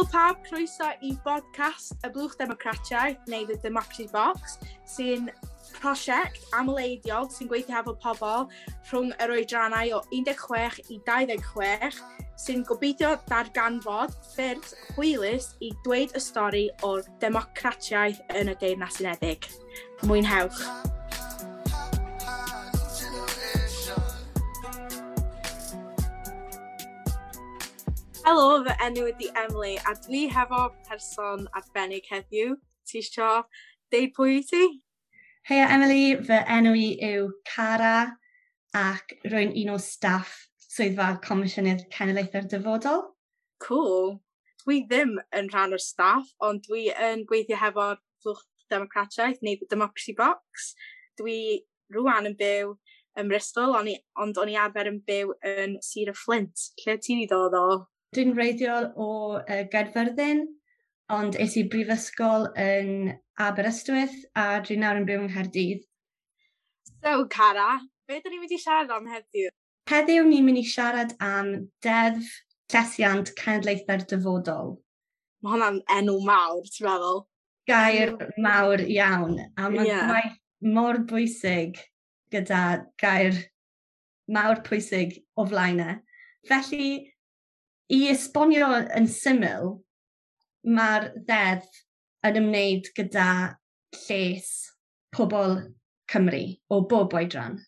Helo pawb, croeso i bodcast y Blwch Democratiaeth neu The Democracy Box, sy'n prosiect amleidiol sy'n gweithio hefo pobl rhwng yr oedrannau o 16 i 26 sy'n gobeithio darganfod ffyrdd hwylus i dweud y stori o'r democratiaeth yn y Deyrnas Unedig. Mwynhewch! Helo, fy enw ydi Emily a dwi hefo person arbennig heddiw. Ti isio deud pwy wyt ti? Heia Emily, fy enw i yw Cara ac rwy'n un o staff Swyddfa Comisiynydd Cenedlaethau'r Dyfodol. Cool. Dwi ddim yn rhan o'r staff, ond dwi yn gweithio hefo'r Blwch Democratiaeth neu The Democracy Box. Dwi rwan yn byw ym Mristol, ond o'n i arfer yn byw yn Sir y Fflint. Lle ti'n i ddod o? Dwi'n wreiddiol o Gaerfyrddin, ond es i brifysgol yn Aberystwyth a dwi nawr yn byw yng Nghaerdydd. So, Cara, be dyn ni'n mynd i siarad am heddiw? Heddiw ni'n mynd i siarad am Deddf Llesiant Cenedlaethau'r Dyfodol. Mae hwnna'n enw mawr, ti'n meddwl? Gair mawr iawn, a mae gwaith mor bwysig gyda gair mawr pwysig o flaen e. Felly, i esbonio yn syml, mae'r ddeddf yn ymwneud gyda lles pobl Cymru o bob oedran.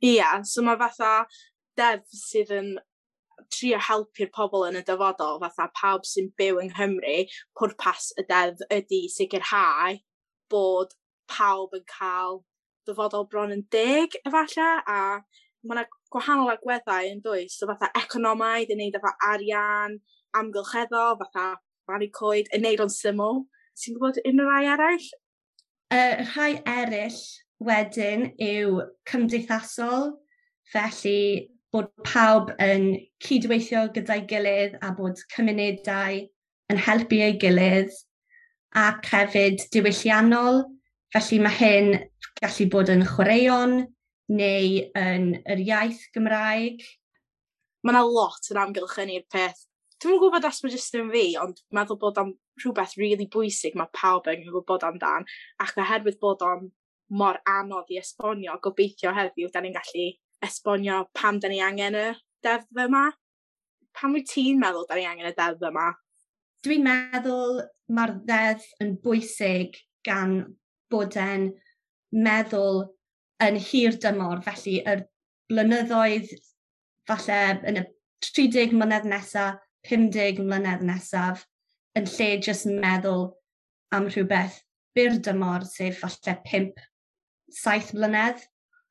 Ie, yeah, so mae fatha deddf sydd yn trio helpu'r pobl yn y dyfodol, fatha pawb sy'n byw yng Nghymru, pwrpas y deddf ydy sicrhau bod pawb yn cael dyfodol bron yn deg efallai, a mae yna gwahanol agweddau yn does, so fatha economaidd, yn neud efo arian, amgylcheddol, fatha plannu coed, yn neud o'n syml. Ti'n gwybod unrhyw rai eraill? Rhai eraill wedyn yw cymdeithasol, felly bod pawb yn cydweithio gyda'i gilydd a bod cymunedau yn helpu ei gilydd, ac hefyd diwylliannol, felly mae hyn gallu bod yn chwaraeon neu yn yr iaith Gymraeg. Mae yna lot yn amgylchynu'r peth. Dwi'm yn gwybod os mae jyst yn fi, ond meddwl bod o'n rhywbeth really bwysig mae pawb yn gwybod amdan, ac oherwydd bod o'n mor anodd i esbonio, gobeithio heddiw da ni'n gallu esbonio pam da ni angen y deddf yma. Pam wyt ti'n meddwl da ni angen y deddf yma? Dwi'n meddwl mae'r ddeddf yn bwysig gan bod e'n meddwl yn hir dymor, felly yr blynyddoedd falle yn y 30 mlynedd nesaf, 50 mlynedd nesaf, yn lle jyst meddwl am rhywbeth byr dymor, sef falle 5-7 mlynedd,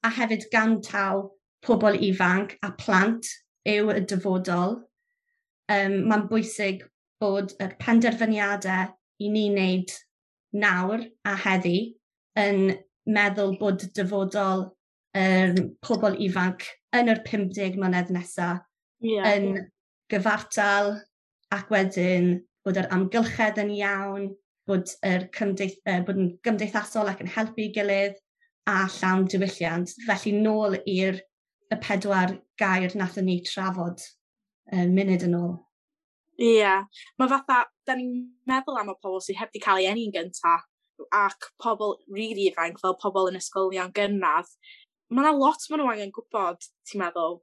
a hefyd gan taw pobl ifanc a plant yw y dyfodol. Mae'n bwysig bod y penderfyniadau i ni wneud nawr a heddi yn meddwl bod dyfodol pobl ifanc yn yr 50 mlynedd nesaf yn gyfartal, ac wedyn bod yr amgylchedd yn iawn, bod, yr bod yn gymdeithasol ac yn helpu gilydd a llawn diwylliant. Felly nôl i'r y 4 gair nathon ni trafod munud yn ôl. Ie, yeah. Mae fatha, da ni'n meddwl am y pobl sydd heb di cael ei eni'n gyntaf, ac pobl really ifanc, fel pobl yn ysgolion gynradd. Mae yna lot maen nhw angen gwybod, ti'n meddwl.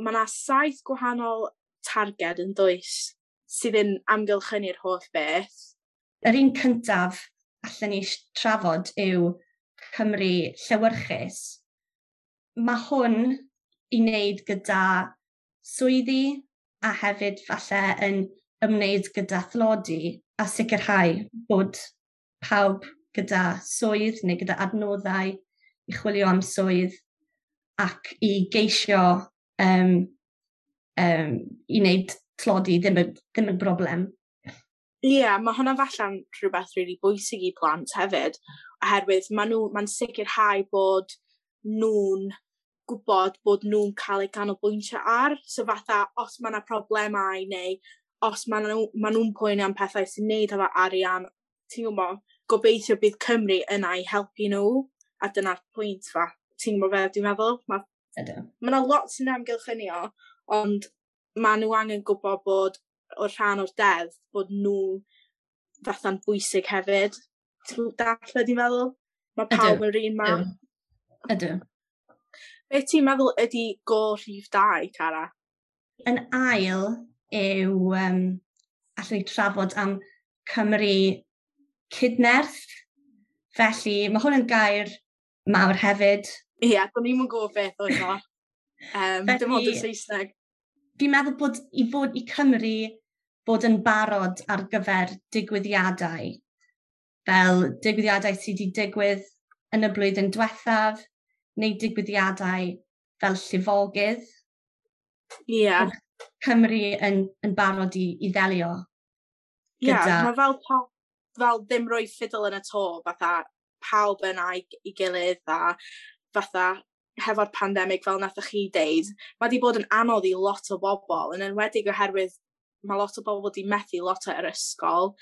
Mae yna 7 gwahanol targed yn does sydd yn amgylchynu'r holl beth. Yr un cyntaf allan ni trafod yw Cymru llewyrchus. Mae hwn i wneud gyda swyddi a hefyd falle yn ymwneud gyda thlodi a sicrhau bod pawb gyda swydd neu gyda adnoddau i chwilio am swydd ac i geisio i wneud tlodi ddim yn broblem. Ie, yeah, mae hwnna falle'n rhywbeth really bwysig i plant hefyd, oherwydd mae'n sicrhau bod nhw'n gwybod bod nhw'n cael eu canolbwyntio ar. So fatha, os mae yna problemau neu os mae nhw'n poeni am pethau sy'n neud efo arian, ti'n gwybod, gobeithio bydd Cymru yna i helpu nhw, a dyna'r pwynt fa. Ti'n gwybod fe, dwi'n meddwl? Mae yna lot sy'n amgylchynio, ond maen nhw angen gwybod bod o'r rhan o'r deddf, bod nhw fatha'n bwysig hefyd. Ti'n dallt be dwi'n feddwl? Mae pawb yn yr un man. Ydw. Be ti'n meddwl ydy gôl rhif 2, Cara? Yn ail yw, allwn ni trafod am Cymru cydnerth. Felly, mae hwn yn gair mawr hefyd. Ie, yeah, do'n i'm yn gwybod beth oedd o. Felly, dim ond y Saesneg. Fi'n meddwl bod i fod i Cymru bod yn barod ar gyfer digwyddiadau, fel digwyddiadau sydd wedi digwydd yn y blwyddyn diwethaf, neu digwyddiadau fel llifogydd. Ie. Yeah. Cymru yn barod i ddelio. Ie, yeah, mae fel, fel ddim rhoi ffidil yn y to, fatha pawb yna i gilydd a fatha hefo'r pandemig fel nathoch chi deud, mae wedi bod yn anodd i lot o bobl, yn enwedig oherwydd mae lot o bobl wedi methu lot o'r ysgol.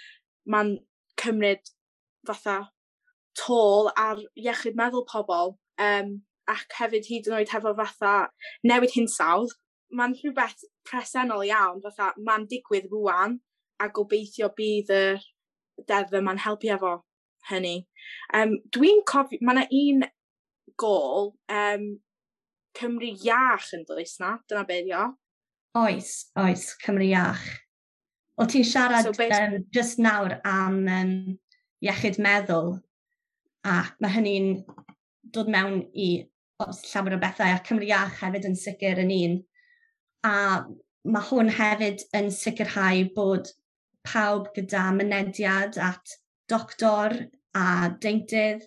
Mae'n cymryd fatha toll ar iechyd meddwl pobl, ac hefyd hyd yn oed hefo fatha newid hinsawdd. Mae'n rhywbeth presennol iawn, fatha mae'n digwydd rwan, a gobeithio bydd y deddf yma'n helpu efo hynny. Dwi'n cofio, mae yna un gôl, Cymru iach yn does na? Dyna beth yw. Oes, oes, Cymru iach. O ti'n siarad so, just nawr am iechyd meddwl, a mae hynny'n dod mewn i llawer o bethau, a Cymru iach hefyd yn sicr yn un. A mae hwn hefyd yn sicrhau bod pawb gyda mynediad at doctor a deintydd,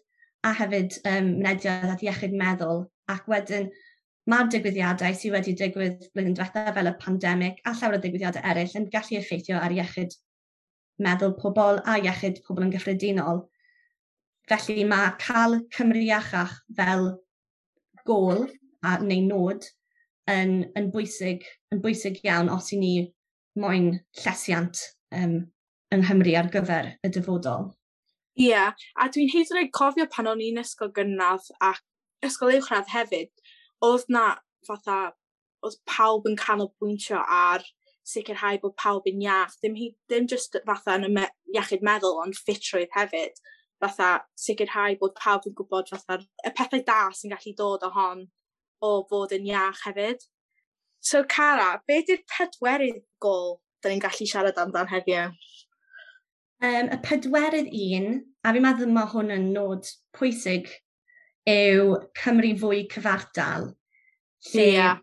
a hefyd mynediad at iechyd meddwl. Ac wedyn mae'r digwyddiadau sydd wedi digwydd blwyddyn diwethaf fel y pandemig a llawer o ddigwyddiadau eraill yn gallu effeithio ar iechyd meddwl pobl a iechyd pobl yn gyffredinol. Felly mae cael Cymru iachach fel gôl neu nod yn bwysig iawn os i ni moyn llesiant yng Nghymru ar gyfer y dyfodol. Ie, yeah, a dwi'n hyd yn oed cofio pan o'n i'n ysgol gynradd ac ysgol uwchradd hefyd, oedd na fatha, oedd pawb yn canolbwyntio ar sicrhau bod pawb yn iach, ddim just fatha yn y iechyd meddwl, ond ffitrwydd hefyd, fatha sicrhau bod pawb yn gwybod fatha y pethau da sy'n gallu dod o hon o fod yn iach hefyd. So Cara, be di'r pedwerydd gôl da ni'n gallu siarad amdan heddiw? Y pedwerydd un, a fi'n meddwl mae hwn yn nod pwysig, yw Cymru fwy cyfartal. Lle yeah.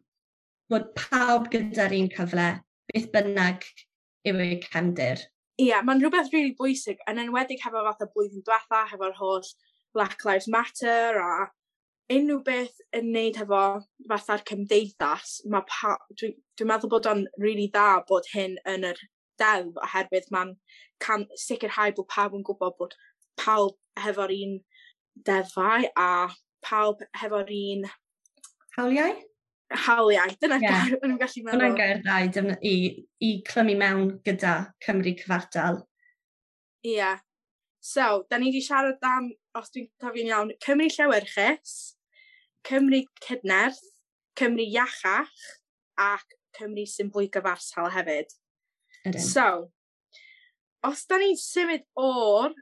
bod pawb gyda'r un cyfle, beth bynnag yw eu cefndir. Ie, yeah, mae'n rhywbeth really bwysig, yn enwedig hefo fatha blwyddyn diwetha, hefo'r holl Black Lives Matter a unrhyw beth yn neud hefo fatha'r cymdeithas, dwi'n meddwl bod o'n really dda bod hyn yn yr deddf, oherwydd mae'n sicrhau bod pawb yn gwybod bod pawb hefo'r un deddfau a pawb hefo'r un... Hawliau? Hawliau, dyna gair o'n i'n gallu meddwl. Hwna'n gair dda i clymu mewn gyda Cymru cyfartal. Ie. Yeah. So, da ni wedi siarad am, os dwi'n cofio'n iawn, Cymru llewyrchus, Cymru cydnerth, Cymru iachach, ac Cymru sy'n fwy gyfartal hefyd. Ydyn. So, os da ni'n symud o'r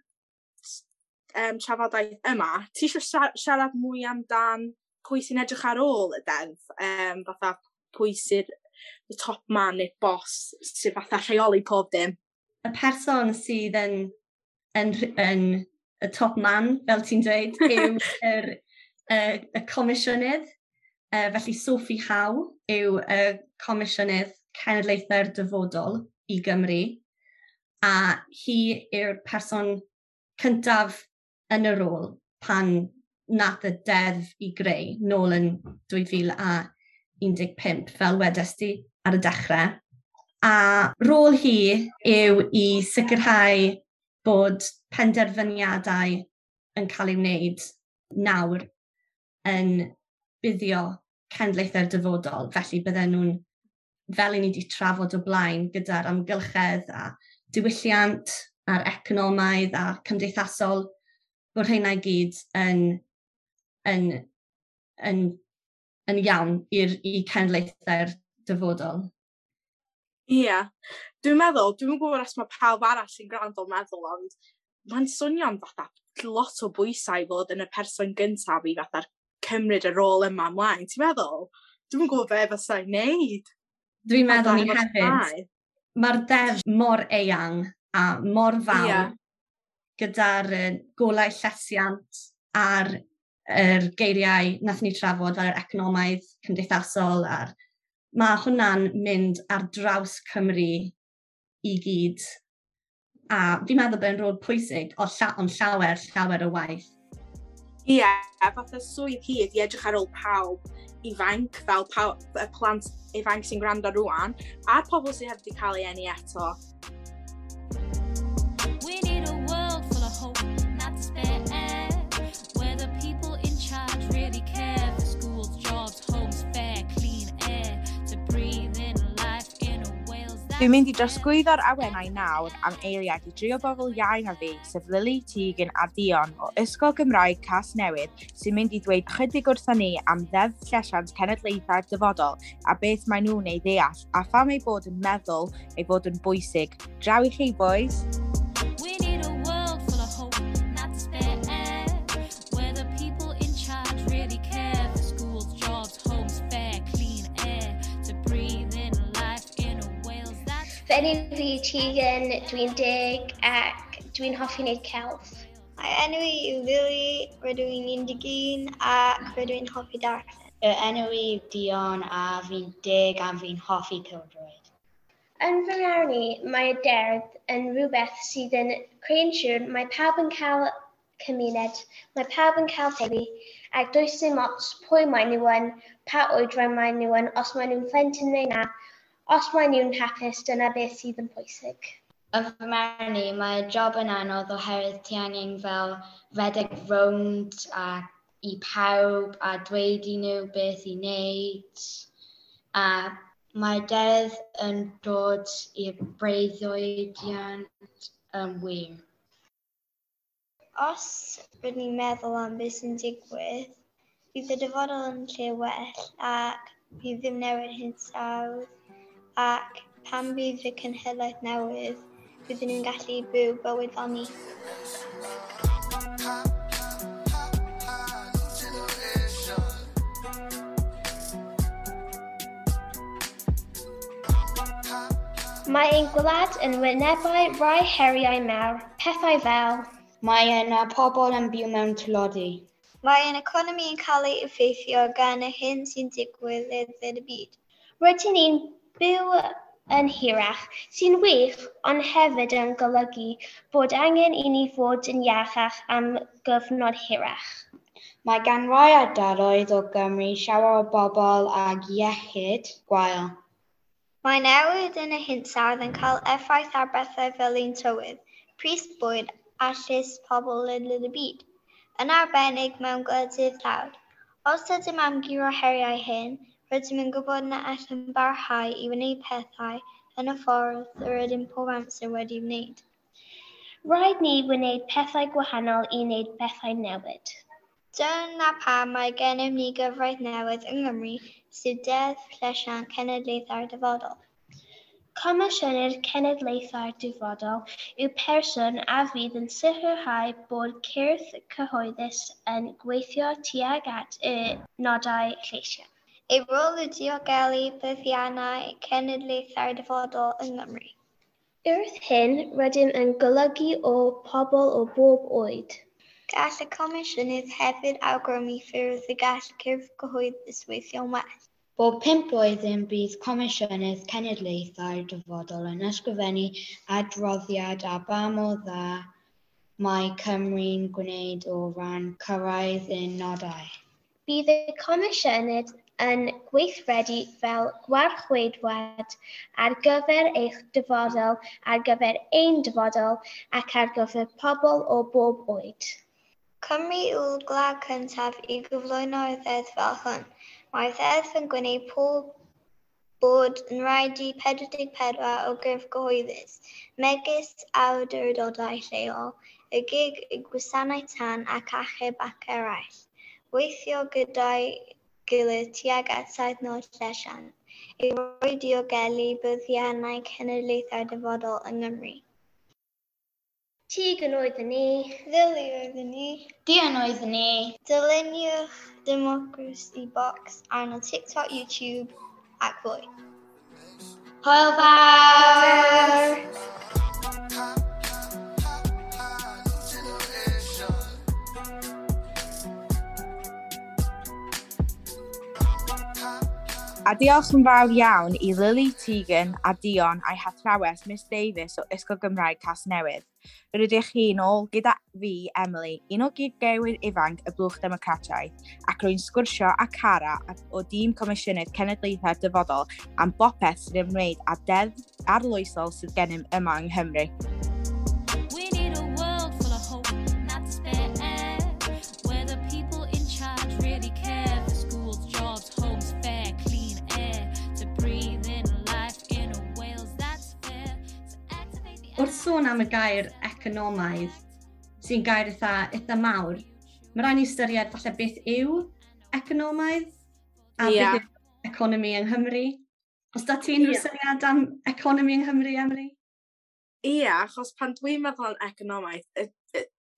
trafodaeth yma, ti eisiau siarad mwy amdan pwy sy'n edrych ar ôl y deddf, fatha pwy sy'n the top man neu boss sy'n fatha rheoli pob dim? Y person sydd yn y top man, fel ti'n dweud, yw y comisiynydd. Felly Sophie Howe yw y comisiynydd cenedlaethau'r dyfodol i Gymru, a hi yw'r person cyntaf yn y rôl pan nath y deddf i greu nôl yn 2015, fel wedest ti ar y dechrau. A rôl hi yw i sicrhau bod penderfyniadau yn cael ei wneud nawr yn buddio cenedlaethau'r dyfodol. Felly bydden nhw'n, fel i ni wedi trafod o blaen, gyda'r amgylchedd a diwylliant a'r economaidd a cymdeithasol, bod rheina i gyd yn iawn i cenedlaethau'r dyfodol. Ie. Yeah. Dwi'n meddwl, dwi'n gwybod os mae pawb arall sy'n gwrando meddwl, ond mae'n swnio'n fatha lot o bwysau i fod yn y person gyntaf i fatha cymryd y rôl yma ymlaen. Ti'n meddwl? Dwi'n gwybod be fasai'n neud. Dwi'n meddwl ni hefyd. Mae'r deddf mor eang a mor fawr gyda'r golau llesiant a'r yr geiriau nath ni trafod fel yr economaidd, cymdeithasol, a'r mae hwnna'n mynd ar draws Cymru i gyd. A fi'n meddwl bod e'n rôl pwysig, o ond llawer, llawer o waith. Ie, yeah, fatha swydd hi ydi edrych ar ôl pawb ifanc, fel pawb, y plant ifanc sy'n gwrando rwan, a'r pobl sydd heb wedi cael ei eni eto. We need a world full of hope, not despair, where the people in charge really care for schools, jobs, homes, fair, clean air, to breathe in life in a Wales that. Dwi'n mynd i drosglwyddo'r awenau nawr am eiliad i dri o bobl iau na fi, sef Lily, Tegan a Dion o Ysgol Gymraeg Casnewydd, sy'n mynd i ddweud chydig wrthon ni am Ddeddf Llesiant Cenedlaethau'r Dyfodol a beth maen nhw'n ei ddeall a pham eu bod yn meddwl ei fod yn bwysig. Draw i chi, boys! We need a world full of hope, not despair, where the people in charge really care for schools, jobs, homes, fair, clean air, to breathe in life in a Wales that's. Fy enw fi yw Tegan, dwi'n 10 ac dwi'n hoffi wneud celf. Mae enw i yw Lily, rydw i'n 11 ac rydw i'n hoffi darllen. Y enw i yw Dion a fi'n 10 a fi'n hoffi pêl-droed. Yn fy marn i, mae y deddf yn rhywbeth sydd yn creu'n siŵr mae pawb yn cael cymuned, mae pawb yn cael teulu, ac does dim ots pwy maen nhw yn, pa oedran maen nhw yn, os maen nhw'n plentyn neu na, os maen nhw'n hapus, dyna beth sydd yn pwysig. Yn fy marn i, mae job yn anodd oherwydd ti angen fel redeg rownd a i pawb a dweud i nhw beth i wneud. A mae deddf yn dod i'r breuddwydiant yn wir. Os rydyn ni'n meddwl am beth sy'n digwydd, bydd y dyfodol yn lle well ac bydd ddim newid hinsawdd, ac pan bydd y cenhedlaeth newydd, bydden nhw'n gallu byw bywyd fel ni. Mae ein gwlad yn wynebu rai heriau mawr, pethau fel. Mae yna pobl yn byw mewn tlodi. Mae ein economi yn cael ei effeithio gan y hyn sy'n digwydd ledled y byd. Rydyn ni'n byw yn hirach, sy'n wych, ond hefyd yn golygu bod angen i ni fod yn iachach am gyfnod hirach. Mae gan rai ardaloedd o Gymru llawer o bobl ag iechyd gwael. Mae newid yn y hinsawdd yn cael effaith ar bethau fel ein tywydd, pris bwyd a lles pobl ledled y byd, yn arbennig mewn gwledydd tlawd. Os ydym am guro heriau hyn, rydym yn gwybod na allwn barhau i wneud pethau yn y ffordd yr ydym pob amser wedi wneud. Rhaid ni wneud pethau gwahanol i wneud pethau newid. Dyna pam mae gennym ni gyfraith newydd yng Nghymru, sef Deddf Llesiant Cenedlaethau'r Dyfodol. Comisiynydd Cenedlaethau'r Dyfodol yw person a fydd yn sicrhau bod cyrff cyhoeddus yn gweithio tuag at y nodau llesiant. Ei rôl yw diogelu buddiannau cenedlaethau'r dyfodol yng Nghymru. Wrth hyn, rydym yn golygu o pobl o bob oed. Gall y Comisiynydd hefyd awgrymu ffyrdd y gall cyrff cyhoeddus weithio'n well. Bob 5 blwyddyn bydd Comisiynydd Cenedlaethau'r Dyfodol yn ysgrifennu adroddiad ar ba mor dda mae Cymru'n gwneud o ran cyrraedd ein nodau. Bydd y Comisiynydd yn gweithredu fel gwarcheidwad ar gyfer eich dyfodol, ar gyfer ein dyfodol ac ar gyfer pobl o bob oed. Cymru yw'r gwlad cyntaf i gyflwyno'r ddeddf fel hwn. Mae'r ddeddf yn gwneud pob bod yn rhaid i 44 o gyrff gyhoeddus, megis awdurdodau lleol, y GIG, y gwasanaeth tân ac achub ac eraill, weithio gyda'i gilydd tuag at saith nod llesiant. Ei roi diogelu buddiannau cenedlaethau'r dyfodol yng Nghymru. Tegan oeddwn i. Lily oeddwn i. Dion oeddwn i. Dyluniwch Democracy Box arno TikTok, YouTube ac fwy. Hwyl fawr! A diolch yn fawr iawn i Lily, Tegan a Dion a'i hathrawes Miss Davies o Ysgol Gymraeg Casnewydd. Rydych chi'n ôl gyda fi, Emily, un o gyd-gewyr ifanc y Blwch Democrataidd, ac rwy'n sgwrsio â Cara o dîm Comisiynydd Cenedlaethau'r Dyfodol am bopeth sy'n ymwneud â deddf arloesol sydd gennym yma yng Nghymru. We need a world full of hope, not despair, where the people in charge really care for schools, jobs, homes, fair, clean air, to breathe in life in a Wales that's fair, to activate the Wrth sôn am y gair economaidd, sy'n gair eitha mawr, mae rhaid ni ystyried falle beth yw economaidd a beth yw economi yng Nghymru. Os da ti unrhyw syniad am economi yng Nghymru, Emily? Ie, achos pan dwi'n meddwl am economaidd,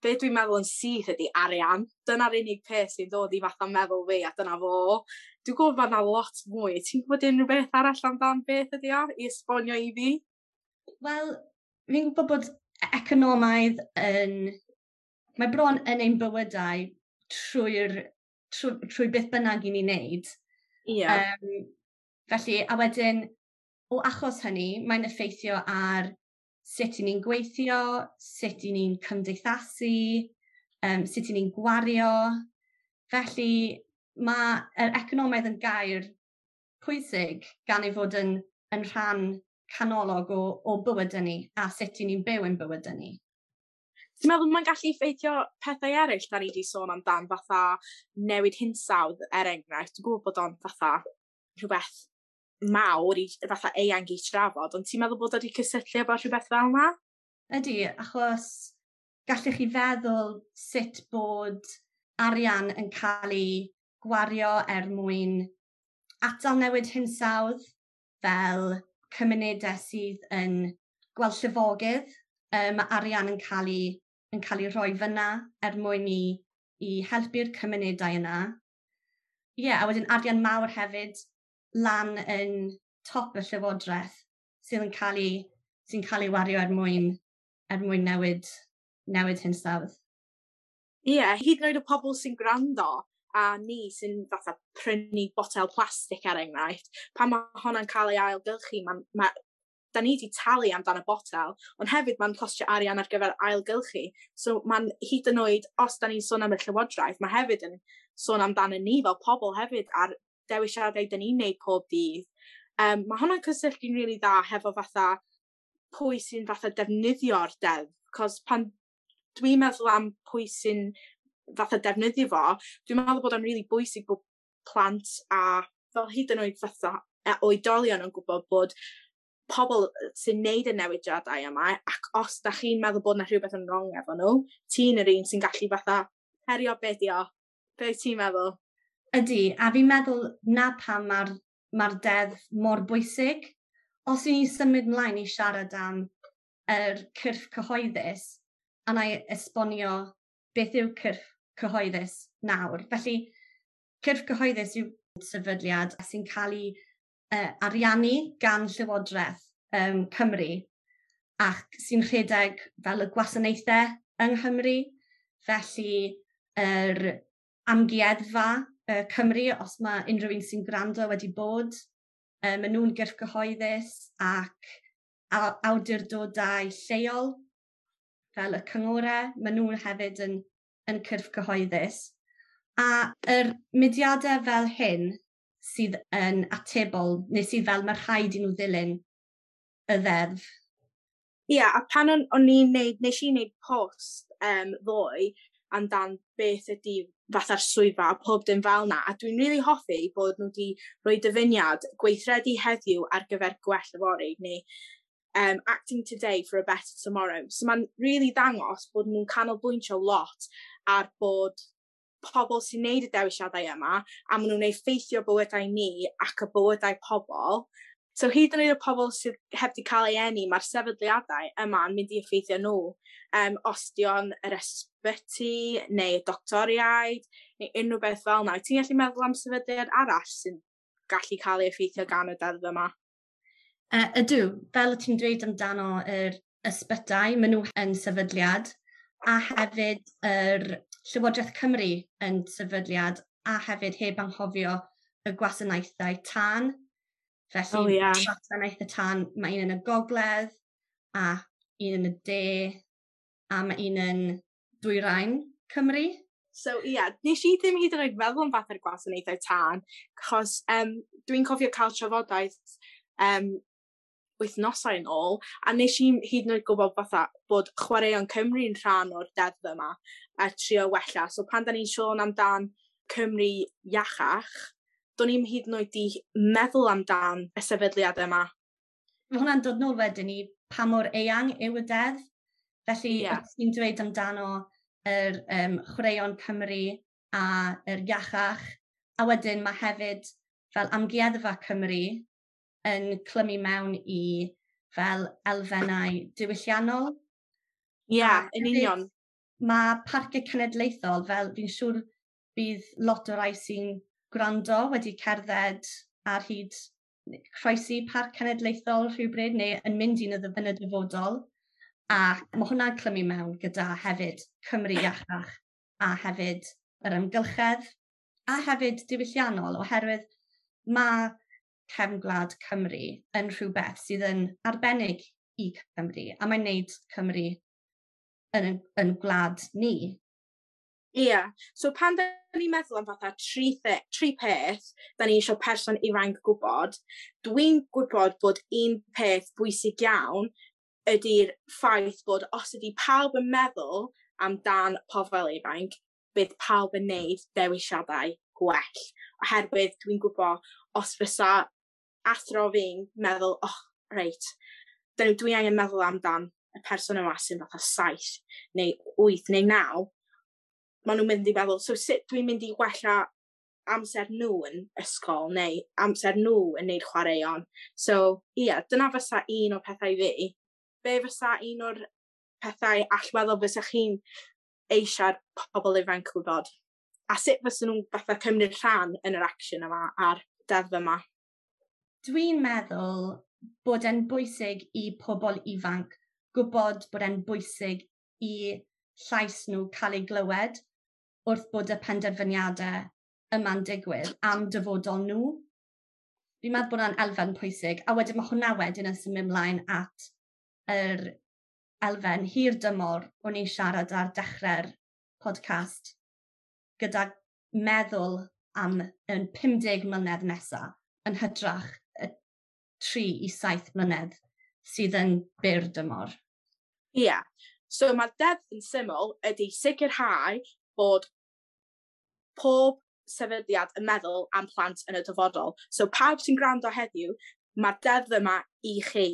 be dwi'n meddwl yn syth ydy arian. Dyna'r unig peth sy'n dod i fatha meddwl fi, a dyna fo. Dwi'n gwybod bod yna lot mwy. Ti'n gwybod unrhyw beth arall amdan beth ydy o, i esbonio i fi? Wel, fi'n gwybod bod economaidd yn... Mae bron yn ein bywydau trwy beth bynnag i ni'n neud. Felly, a wedyn, o achos hynny, mae'n effeithio ar sut i ni'n gweithio, sut i ni'n cymdeithasu, sut i ni'n gwario. Felly, mae'r economaidd yn gair pwysig gan ei fod yn rhan canolog o bywydau ni a sut i ni'n byw ein bywydau ni. Ti'n meddwl mae'n gallu effeithio pethau eraill da ni wedi sôn amdan, fatha newid hinsawdd, er enghraifft? Dwi'n gwybod bod o'n fatha rhywbeth mawr, i, fatha eang i trafod, ond ti'n meddwl bod o wedi cysylltu efo rhywbeth fel yna? Ydy, achos gallech chi feddwl sut bod arian yn cael ei gwario er mwyn atal newid hinsawdd, fel cymunedau sydd yn gweld llifogydd, mae arian yn cael ei rhoi fyna er mwyn i helpu'r cymunedau yna. Ie, a wedyn arian mawr hefyd lan yn top y llywodraeth sydd yn cael ei, sy'n cael ei wario er mwyn newid hinsawdd. Ie, hyd yn oed y pobl sy'n gwrando a ni sy'n fatha prynu botel plastig er enghraifft, pan mae hwnna'n cael ei ailgylchu, da ni wedi talu amdan y botel, ond hefyd mae'n costio arian ar gyfer ailgylchu. So mae'n hyd yn oed, os da ni'n sôn am y llywodraeth, mae hefyd yn sôn amdano ni fel pobl hefyd a'r dewisiadau da ni'n neud pob dydd. Mae hwnna'n cysylltu'n rili dda hefo fatha pwy sy'n fatha defnyddio'r deddf, cos pan dwi'n meddwl am pwy sy'n fatha defnyddio fo, dwi'n meddwl bod o'n rili bwysig bod plant a fel hyd yn oed fatha oedolion yn gwybod bod pobl sy'n neud y newidiadau yma, ac os da chi'n meddwl bod yna rhywbeth yn wrong efo nhw, ti'n yr un sy'n gallu fatha herio be di o. Be ti'n meddwl? Ydy, a fi'n meddwl na pam mae'r deddf mor bwysig. Os i ni symud ymlaen i siarad am yr cyrff cyhoeddus, a na i esbonio beth yw cyrff cyhoeddus nawr. Felly, cyrff cyhoeddus yw sefydliad sy'n cael ei ariannu gan Llywodraeth Cymru ac sy'n rhedeg fel y gwasanaethau yng Nghymru. Felly, yr amgueddfa Cymru, os mae unrhyw un sy'n gwrando wedi bod, maen nhw'n gyrff cyhoeddus ac awdurdodau lleol fel y cyngorau, maen nhw'n hefyd yn cyrff cyhoeddus. A yr mudiadau fel hyn sydd yn atebol, neu sydd fel mae rhaid i nhw ddilyn y ddeddf. Ie, a pan o'n i'n neud, nes i wneud post ddoe amdan beth ydy fatha'r swyddfa a pob dim fel na, a dwi'n rili hoffi bod nhw wedi rhoi dyfyniad gweithredu heddiw ar gyfer gwell yfory, neu acting today for a better tomorrow. So mae'n rili ddangos bod nhw'n canolbwyntio lot ar bod pobl sy'n neud y dewisiadau yma, a maen nhw'n effeithio bywydau ni ac y bywydau pobl. So hyd yn oed y pobl sydd heb di cael ei eni, mae'r sefydliadau yma yn mynd i effeithio nhw. Os di o'n yr ysbyty, neu y doctoriaid, neu unrhyw beth fel yna. Ti'n gallu meddwl am sefydliad arall sy'n gallu cael ei effeithio gan y deddf yma? Ydw, fel ti'n dweud amdano yr ysbytai, maen nhw yn sefydliad, a hefyd yr Llywodraeth Cymru yn sefydliad, a hefyd heb anghofio y gwasanaethau tân. Felly, oh, yeah. Gwasanaethau tân, mae un yn y gogledd, a un yn y de, a mae un yn dwyrain Cymru. So, ie, yeah, nes i ddim hyd yn oed meddwl am fath o'r gwasanaethau tân, achos dwi'n cofio cael trafodaeth wythnosau yn ôl, a nes i hyd yn oed gwybod fatha bod Chwaraeon Cymru'n rhan o'r deddf yma a trio wella. So pan da ni'n sôn amdan Cymru iachach, do'n i'm hyd yn oed di meddwl amdan y sefydliad yma. Mae hwnna'n dod nôl wedyn i pa mor eang yw y deddf. Felly, yeah. Ti'n dweud amdano yr Chwaraeon Cymru a yr iachach, a wedyn mae hefyd fel Amgueddfa Cymru yn clymu mewn i fel elfennau diwylliannol. Ie, yeah, yn union. Mae parciau cenedlaethol, fel fi'n siŵr bydd lot o rai sy'n gwrando wedi cerdded ar hyd croesi parc cenedlaethol rhywbryd neu yn mynd un yn y dyfodol. A mae hwnna'n clymu mewn gyda hefyd Cymru iachach a hefyd yr amgylchedd a hefyd diwylliannol, oherwydd mae cefn gwlad Cymru yn rhywbeth sydd yn arbennig i Cymru, a mae'n neud Cymru yn gwlad ni. Ie, yeah. So pan da ni'n meddwl am fatha tri peth da ni eisiau person ifanc gwybod, dwi'n gwybod bod un peth bwysig iawn ydy'r ffaith bod os ydy pawb yn meddwl amdan pobl ifanc, bydd pawb yn neud dewisiadau gwell. Oherwydd dwi'n gwybod os fysa athro fi'n meddwl, oh, reit, dwi angen meddwl amdan y person yma sy'n fatha 7 neu 8 neu 9, maen nhw'n mynd i meddwl, so sut dwi'n mynd i wella amser nhw yn ysgol neu amser nhw yn neud chwaraeon. So, ie, yeah, dyna fysa un o'r pethau fi. Be fysa un o'r pethau allweddol fysa chi'n eisiau'r pobl ifanc gwybod? A sut fysa nhw'n fatha cymryd rhan yn yr action yma a'r deddf yma? Dwi'n meddwl bod e'n bwysig i pobl ifanc gwybod bod e'n bwysig i llais nhw cael ei glywed wrth bod y penderfyniadau yma'n digwydd am dyfodol nhw. Fi'n meddwl bod hwnna'n elfen pwysig, a wedyn mae hwnna wedyn yn symud ymlaen at yr elfen hir dymor o'n i'n siarad ar dechrau'r podcast gyda meddwl am yn 50 mlynedd nesaf yn hytrach y 3 i 7 mlynedd sydd yn byr dymor. Ie. Yeah. So mae'r deddf yn syml ydy sicrhau bod pob sefydliad yn meddwl am plant yn y dyfodol. So pawb sy'n gwrando heddiw, mae'r deddf yma i chi.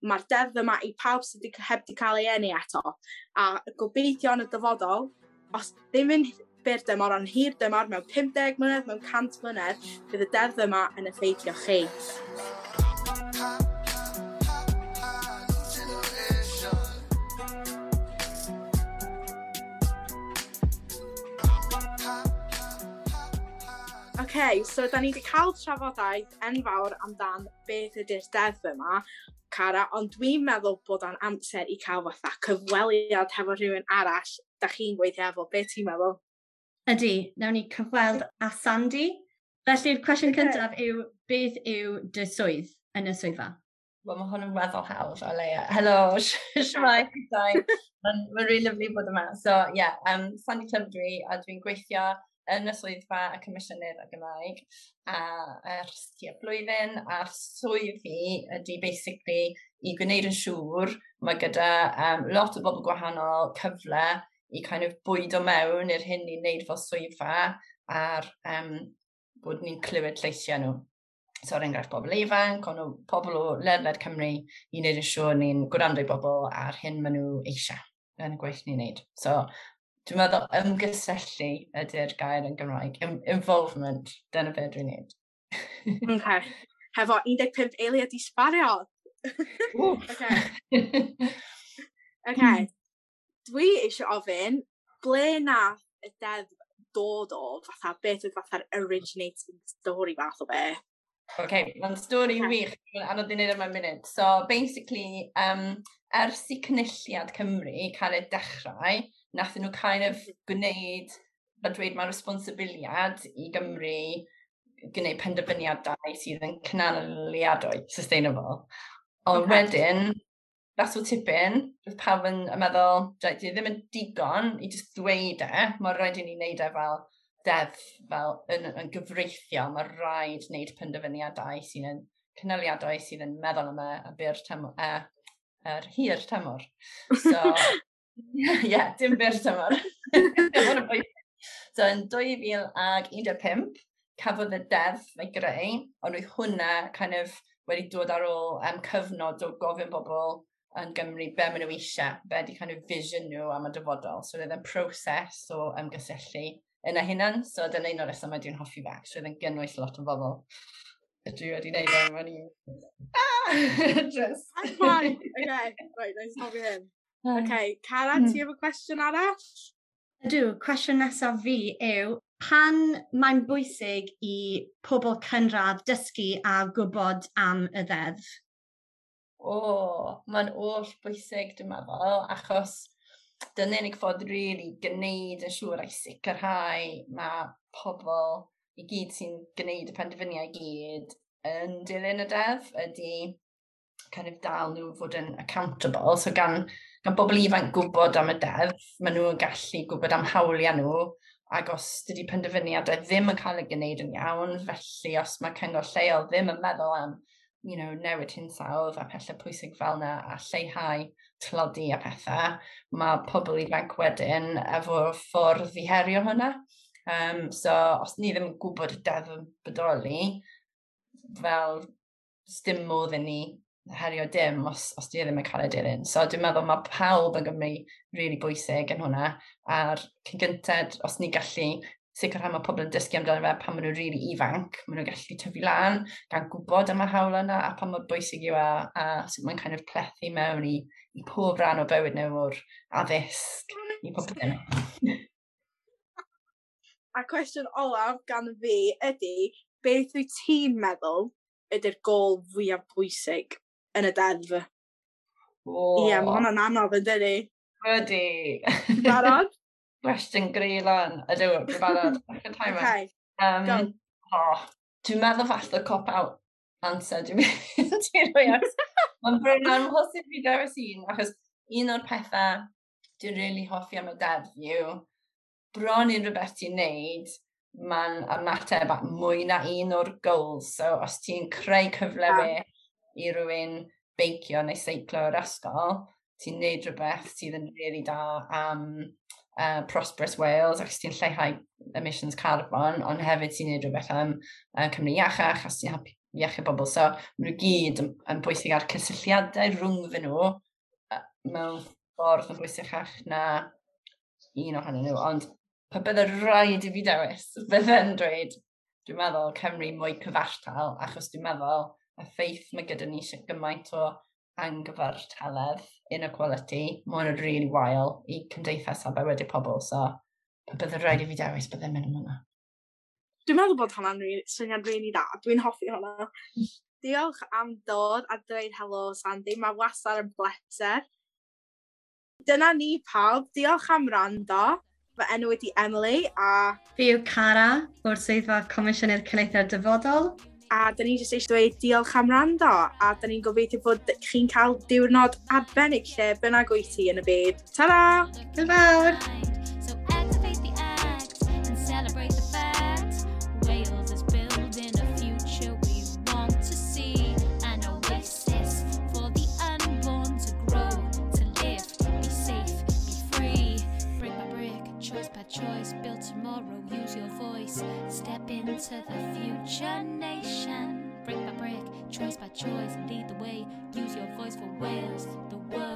Mae'r deddf yma i pawb sydd heb di cael ei eni eto. A gobeithio yn y dyfodol, os ddim yn byr dymor, ond hir dymor, mewn 50 mlynedd, mewn 100 mlynedd, bydd y deddf yma yn effeithio chi. OK, so da ni wedi cael trafodaeth enfawr amdan beth ydy'r deddf yma, Cara, ond dwi'n meddwl bod o'n amser i cael fatha cyfweliad hefo rhywun arall da chi'n gweithio efo. Be ti'n meddwl? Ydy, nawn ni cyfweld â Sandy. Felly'r cwestiwn cyntaf yw, beth yw dy swydd yn y swyddfa? Wel, mae hwn yn weddol hawdd o leia. Helo, shwmae, Mae'n really lovely bod yma. So, yeah, Sandy Plumb dwi, a dwi'n gweithio yn y swyddfa y Comisiynydd y Gymraeg a ers tua blwyddyn, a'r swydd fi ydy basically i gwneud yn siŵr mae gyda lot o bobl gwahanol cyfle i kind of bwydo mewn i'r hyn ni'n neud fel swyddfa a'r bod ni'n clywed lleisiau nhw. So er enghraifft pobl ifanc, ond pobl o ledled Cymru i wneud yn siŵr ni'n gwrando i bobl a'r hyn maen nhw eisiau yn y gwaith ni'n neud. So Dwi'n meddwl ymgysylltu ydy'r gair yn Gymraeg. Involvement, dyna beth dwi'n neud. Okay. Hefo 15 eiliad i sbario. Okay. Okay. Dwi eisiau ofyn, ble nath y deddf dod o, fatha, beth oedd fatha'r originating story fath o be? Okay, mae'n stori wych, mae'n anodd i wneud yma munud. So, basically, ers i Cynulliad Cymru cael ei dechrau, nath nhw kind of gwneud, fel dweud, mae responsibiliad i Gymru gwneud penderfyniadau sydd yn cynaliadwy, sustainable. Ond wedyn, that's o tipyn, roedd pawb yn meddwl, dwi ddim yn digon i just ddweud e, mae rhaid i ni wneud e fel deddf, fel yn gyfreithiol, mae rhaid wneud penderfyniadau sydd yn cynaliadwy, sydd yn meddwl am y byr tymor, yr hir tymor. So, yeah, dim byr tymor. So, yn 2015, cafodd y deddf ei greu, ond oedd hwnna kind of wedi dod ar ôl cyfnod o gofyn bobl yn Gymru be maen nhw eisiau, be di kind of vision nhw am y dyfodol. So oedd e'n proses o ymgysylltu yna hunan, so dyna un o'r resymau dwi'n hoffi fe. So oedd e'n gynnwys lot o bobl. Dwi wedi gwneud e, mae'n i... Ah! Just... I'm fine. Okay, right, nice stopio hyn. Okay, Cara, ti efo cwestiwn arall? Ydw, cwestiwn nesaf fi yw, pan mae'n bwysig i pobl cynradd dysgu a gwybod am y ddeddf? O, mae'n oll bwysig, dwi'n meddwl, achos dyna'r unig ffordd really gwneud yn siŵr a'i sicrhau mae pobl i gyd sy'n gwneud y penderfyniadau i gyd yn dilyn y deddf ydy kind of dal nhw fod yn accountable. So gan bobl ifanc gwybod am y deddf, maen nhw'n gallu gwybod am hawliau nhw, ac os dydy penderfyniadau ddim yn cael ei gwneud yn iawn, felly os mae cyngor lleol ddim yn meddwl am newid hinsawdd a pethau pwysig fel yna a lleihau tlodi a pethau, mae pobl ifanc wedyn efo ffordd i herio hwnna. So, os ni ddim yn gwybod y deddf yn bodoli, fel dim modd i ni herio dim os di ddim yn cael ei dilyn. So dwi'n meddwl mae pawb yn Gymru really bwysig yn hwnna, a'r cyn gynted, os ni gallu sicrhau mae pobl yn dysgu amdano fe pan maen nhw'n really ifanc, maen nhw'n gallu tyfu lan, gan gwybod am y hawl yna, a pa mor bwysig yw e, a sut mae'n kind of plethu mewn i pob rhan o bywyd nhw o'r addysg i pob dim. A cwestiwn olaf gan fi ydy, beth wyt ti'n meddwl ydy'r gol fwyaf bwysig yn y deddf? Oh. Ie, mae hwnna'n anodd yn dydi? Ydy. Barod? Cwestiwn greulon. Ydw, dwi'n barod. Okay, go. Oh, dwi'n meddwl falle cop-out answer dwi'n mynd i rhoi at. Mae'n bron amhosib fi dewis un, achos un o'r pethau dwi'n really hoffi am y deddf yw, bron unrhyw beth ti'n neud, mae'n ymateb at mwy na un o'r goals. So os ti'n creu cyfle well i rywun beicio neu seiclo o'r ysgol, ti'n neud rhywbeth sydd yn really da am Prosperous Wales, ac ti'n lleihau emissions carbon, ond hefyd ti'n neud rhywbeth am Cymru iachach, a ti'n helpu iechyd bobl. So, maen nhw gyd yn bwysig ar cysylltiadau rhwngddyn nhw mewn ffordd yn bwysicach na un ohonyn nhw. Ond pe bydde rhaid i fi dewis, bydde'n dweud, dwi'n meddwl Cymru mwy cyfartal, achos dwi'n meddwl y ffaith mae gyda ni eisiau gymaint o anghyfartaledd, inequality, mae hwn yn really wael i cymdeithas a bywydau pobl, so pe bydde rhaid i fi dewis, bydde'n mynd am hwnna. Dwi'n meddwl bod hwnna'n syniad really da. Dwi'n hoffi hwnna. Diolch am dod a dweud helo, Sandy. Mae wastad yn bleser. Dyna ni pawb. Diolch am wrando. Fy enw ydi Emily a... Fi yw Cara o'r Swyddfa Comisiynydd Cenedlaethau'r Dyfodol. A dyn ni jyst eisiau dweud diolch am wrando. A dyn ni'n gobeithio bod chi'n cael diwrnod arbennig lle bynnag wyt ti yn y byd. Ta-ra! Hwyl fawr! So activate the act and celebrate the fact Wales is building a future we want to see, an oasis for the unborn to grow, to live, be safe, be free. Brick by brick, choice by choice, build tomorrow, use your voice, step into the future nation. Brick by brick, choice by choice, lead the way, use your voice for Wales, the world.